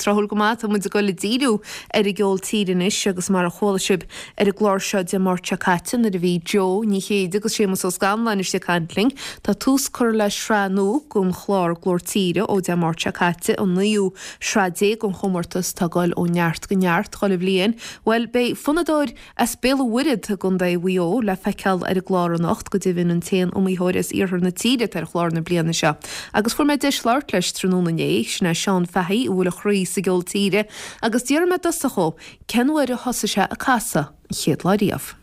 tráthúil go maith, tá muid ag dul ag díriú ar an gceol tíre anois agus mar a chuala sibh ar an gclár seo Dé Máirt seo caite nuair a bhí Joe Ní Chéide agus Séamus Ó Scanláin istigh ag caint linn, tá tús curtha le sraith nua den chlár Glór Tíre ó Dé Máirt seo caite, an naoú sraith déag den chomórtas atá ag dul ó neart go neart chuile bhliain. Bhuel, beidh fonnadóir As Béal an Mhuirthead i gContae Mhaigh Eo le feiceáil ar an gclár anocht, go deimhin an t-aon iomaitheoir as iarthar na tíre atá ar chlár na bliana seo. Agus fuair mé deis labhairt leis tráthnóna inné, sin é Seán Fahey a bhfuil a chroí sa gceol tíre, agus d'fhiafraigh mé i dtosach dhó cén uair a thosaigh sé ag casadh an chéad lá riamh.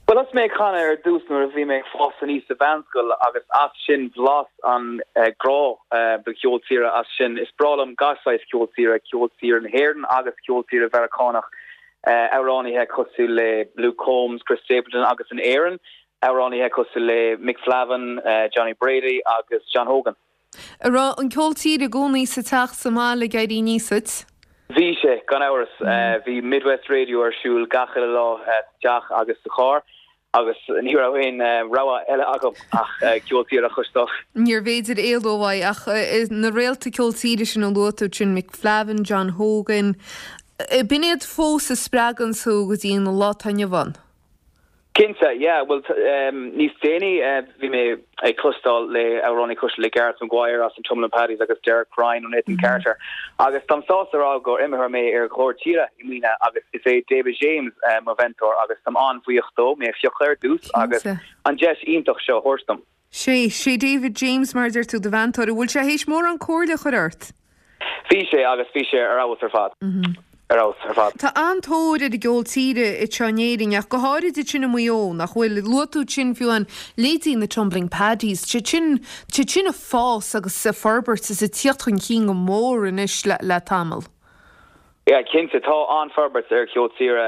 Bhuel, thosaigh mé ag canadh ar dtús nuair a bhí mé ag fás aníos sa mheánscoil agus as sin bhlas an grá do cheol tíre as sin. Is breá liom gach saghas ceol tíre, ceol tíre na hÉireann agus ceol tíre Mheiriceánach. amhránaithe cosúil le Luke Combs, Chris Stapleton agus in Éirinn, amhránaithe cosúil le Mick Flavin, Johnny Brady agus John Hogan. An raibh an ceol tíre i gcónaí sa teach sa mbaile ag éirí aníos duit? Bhí sé, gan amhras. Bhí Midwest Radio ar siúl gach uile lá sa teach agus sa charr. Agus ní raibh aon rogha eile agam ach ceol tíre a chloisteáil. Níorbh fhéidir éalú uaidh ach na réalta ceol tíre sin a luaigh tú ansin, Mick Flavin, John Hogan, b'in iad fós a spreagann tú go dtí an lá atá inniu ann? Cinnte, yeah. Bhuel, níos déanaí bhí mé ag cloisteáil le amhránaí cosúil le Gareth Maguire as an Tumbling Paddies agus Derek Ryan ó Nathan Carter agus táim sásta a rá gur iomaitheoir mé ar Ghlór Tíre i mbliana agus is é David James mo mheantóir agus táim an-bhuíoch dó mé a phiocadh ar dtús agus an deis iontach seo a thabhairt dom. Sé, sé David James mar a deir tú do mheantóir. An bhfuil sé théis mórán comhairle a chur ort? Bhí sé agus bhí sé ar fheabhas ar fad. Ar fheabhas ar fad. Tá an-tóir ar an gceol tíre anseo in Éirinn ach go háirid ansin i Maigh Eo, nach bhfuil? Luaigh tú ansin fiú amháin leithéidí na Tumbling Paddies, tá siad sin, tá siad sin ag fás agus ag forbairt is ag tíocht chun cinn go mór anois le, le tamall. Yeah, cinnte, tá an-forbairt ar cheol tíre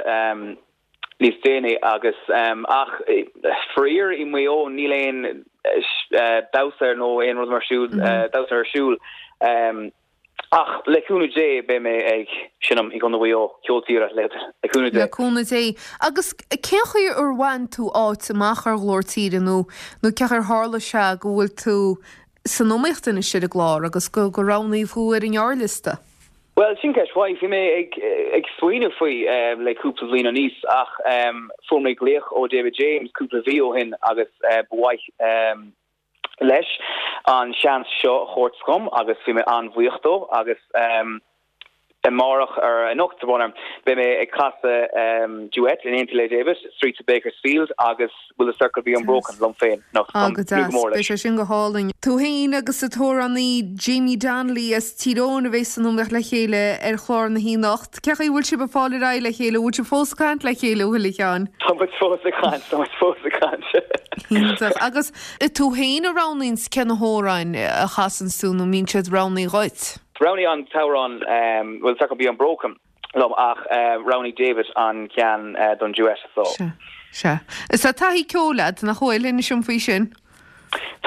níos déanaí agus ach faraor i Maigh Eo níl aon damhsa nó aon rud mar siúl, damhsa ar siúl. Ach le cúnamh Dé beidh mé ag seinm i gContae Mhaigh Eo, ceol tíre le cúnamh Dé. Le cúnamh Dé. Agus cén chaoi ar bhain tú áit amach ar Ghlór Tíre nó nó cén chaoi ar tharla sé go bhfuil tú san iomaíocht anois ar an gclár agus go go roghnaíodh thú ar an ngearrliosta? Bhuel, sin ceist mhaith. Bhí mé ag smaoineamh faoi le cúpla bliain aníos ach fuair mé glaoch ó David James cúpla mhí ó shin agus ba mhaith leis an seans seo a thabhairt dhom agus bhí mé an-bhuíoch dó agus amárach ar anocht, beidh mé ag casadh duet in éineacht le David, Streets of Bakersfield agus Will the Circle Be Unbroken liom féin anocht. Ah, go deas. Beidh sé sin go hálainn. Tú féin agus an t-amhránaí Jamie Donnelly as Tír Eoghain a bheas san iomaíocht le chéile ar chlár na hoíche anocht. Cén chaoi a bhfuil sibh ag fáil ar aghaidh le chéile? An bhfuil sibh fós ag caint le chéile, an bhfuil, a Sheáin? Tá muid fós ag caint, tá muid fós ag caint. Iontach. Agus tú féin a roghnaíonns cé na hamhráin a chasanns tú nó an mbíonn siad roghnaithe dhuit? Roghnaigh an t-amhrán Will the Circle Be Unbroken liom ach roghnaigh David an ceann don duet so. Sea, sea. Is tá taithí ceoil agat, nach bhfuil? Inis dom faoi sin.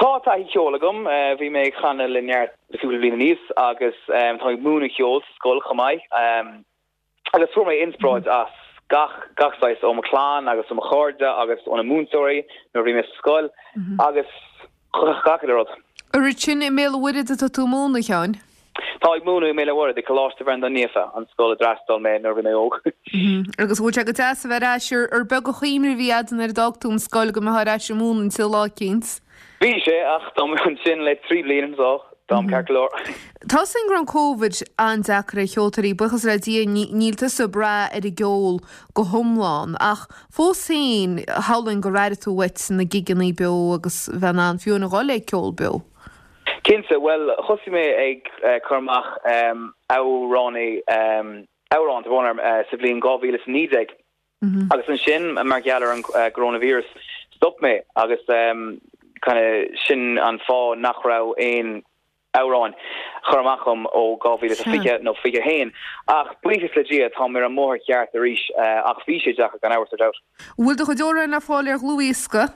Tá taithí ceoil agam. Bhí mé ag canadh le Neart le cúpla bliain aníos agus tá mé ag múineadh ceoil sa scoil chomh maith. Agus fuair mé inspioráid as gach, gach saghas, ó mo chlann agus ó mo chairde agus ó na múinteoirí nuair a bhí mé sa scoil agus gach uile rud. An ansin i mBéal an Mhuirthead atá tú ag múineadh, a Sheáin? Tá ag múineadh i mBéal an Mhuirthead, i Coláiste Bhreandáin Naofa, an scoil a d'fhreastail mé nuair a bhí mé óg. Agus bhfuil sé go deas a bheith ar ais, ar beag an chuimhne a bhí agat nuair a d'fhág tú an scoil go mbeifeá ar ais ag múineadh ansin lá eicínt? Bhí sé, ach táim ansin le 3 bliana so táim ceart go leor. Tá a fhios againn go raibh an Covid an-deacair ar cheoltóirí, buíochas le Dia níl tusa ag brath ar an gceol go hiomlán, ach fós féin, shamhlóinn gur airigh tú uait na gigeanna beo agus bheith in ann fiú a dhul ag ceol beo. Cinnte, bhuel thosaigh mé ag cur amach amhránaí, amhrán, tá brón orm, sa bhliain 2019. Agus ansin, mar gheall ar an gcoróinvíreas, stop mé agus kind of sin an fáth nach raibh aon amhráin curtha amach agam ó 2020 nó 21. Ach buíochas le Dia, táim ar an mbóthar ceart arís ach bhí sé deacair gan amhras, no doubt. Bhfuil do chuid amhrán le fáil ar dhlúthdhiosca?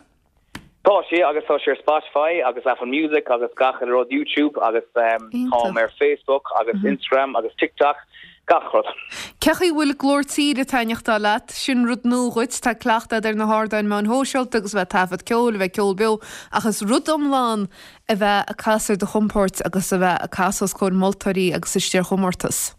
Tá sé agus tá sé ar Spotify agus Apple Music agus gach uile rud, YouTube agus táim ar Facebook agus Instagram agus TikTok, gach rud. Cén chaoi a bhfuil Glór Tíre ag taitneachtáil leat? Sin rud nua dhuit, tá cleachtadh agat ar na hardáin meáin shóisialta agus a bheith ag taifead ceoil, a bheith ag ceol beo ach is rud iomlán a bheith ag casadh ar do chompord agus a bheith ag casadh os comhair moltóirí agus istigh ar chomórtas.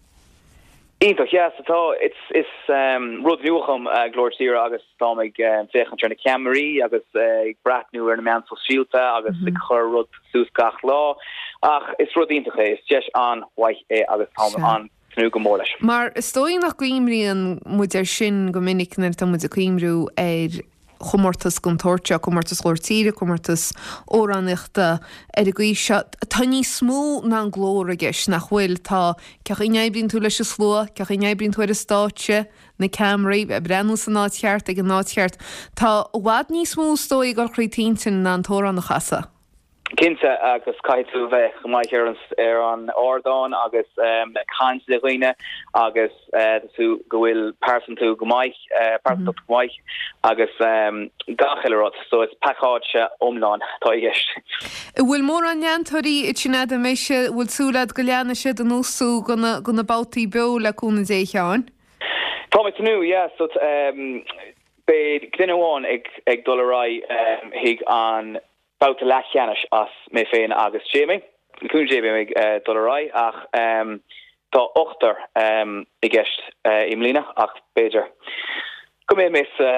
Iontach, yeah, so tá, it's, is rud nua dhom Glór Tíre agus táim ag féachaint ar na ceamaraí agus ag breathnú ar na meáin sóisialta agus ag cur rud suas gach lá ach is rud iontach é, is deis an-mhaith é agus táim an-tnúth go mór leis. Mar is dóigh nach gcuimríonn muid air sin go minic nuair atá muid ag cuimriú ar chomórtas den tsórt seo, comórtas Ghlór Tíre, comórtas amhránaíochta ar an gcaoi seo. Tá níos mó ná an glór i gceist, nach bhfuil? Tá, cén chaoi a n-oibríonn tú leis an slua, cén chaoi a n-oibríonn tú ar an stáitse, na ceamaraí, ag breathnú san áit cheart, ag an áit cheart. Tá i bhfad níos mó is dóigh ag dul thríd t'intinn ná an t-amhrán a chasadh. Cinnte, agus caithfidh tú a bheith go maith ar ar an ardán agus ag caint le dhaoine agus tú go bhfuil pearsantú go maith, pearsantacht go maith agus gach uile rud. So is pacáiste iomlán atá i gceist. An bhfuil mórán leantóirí ansin agat, an mbeidh sé, an bhfuil súil agat go leanfaidh siad anuas thú go na, go na babhtaí beo le cúnamh Dé, a Sheáin? Tá mé ag tnúth, yeah, so beidh duine amháin ag ag dul ar aghaidh chuig an babhta leathcheannais as mé féin agus Jamie. Le cúnamh Dé beidh mé ag dul ar aghaidh ach tá ochtar i gceist i mbliana ach b'fhéidir go mbeidh mé sa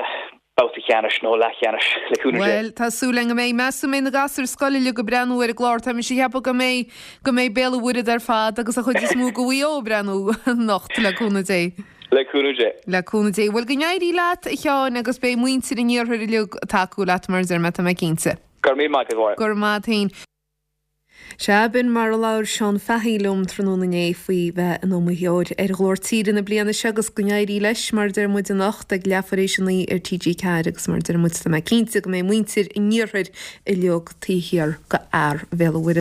babhta ceannais nó leathcheannais le cúnamh Dé. Bhuel, tá súil againn go mbeidh. Meas tú an mbeidh na gasúir scoile uilig ag breathnú ar an gclár? Tá mise ag ceapadh go mbeidh, go mbeidh Béal an Mhuirthead ar fad agus an chuid is mó de Mhaigh Eo ag breathnú anocht, le cúnamh Dé. Le cúnamh Dé. Le cúnamh Dé. Bhuel, go n-éirí leat, a Sheáin, agus beidh muintir an iarthair uilig ag tacú leat, mar a deir mé, tá mé cinnte. Go raibh míle maith agat, a Mháire. Go raibh maith agat féin. Sea, b'in mar a labhair Seán Fahy liom tráthnóna inné faoi bheith ina iomaitheoir ar Ghlór Tíre na bliana seo agus go n-éirí leis, mar a deir muid anocht ag leathuair éis a 9 ar TG4 agus mar a deir muid, tá mé cinnte go mbeidh muintir an iarthair uilig taobh thiar de fhear Bhéal an Mhuirthead.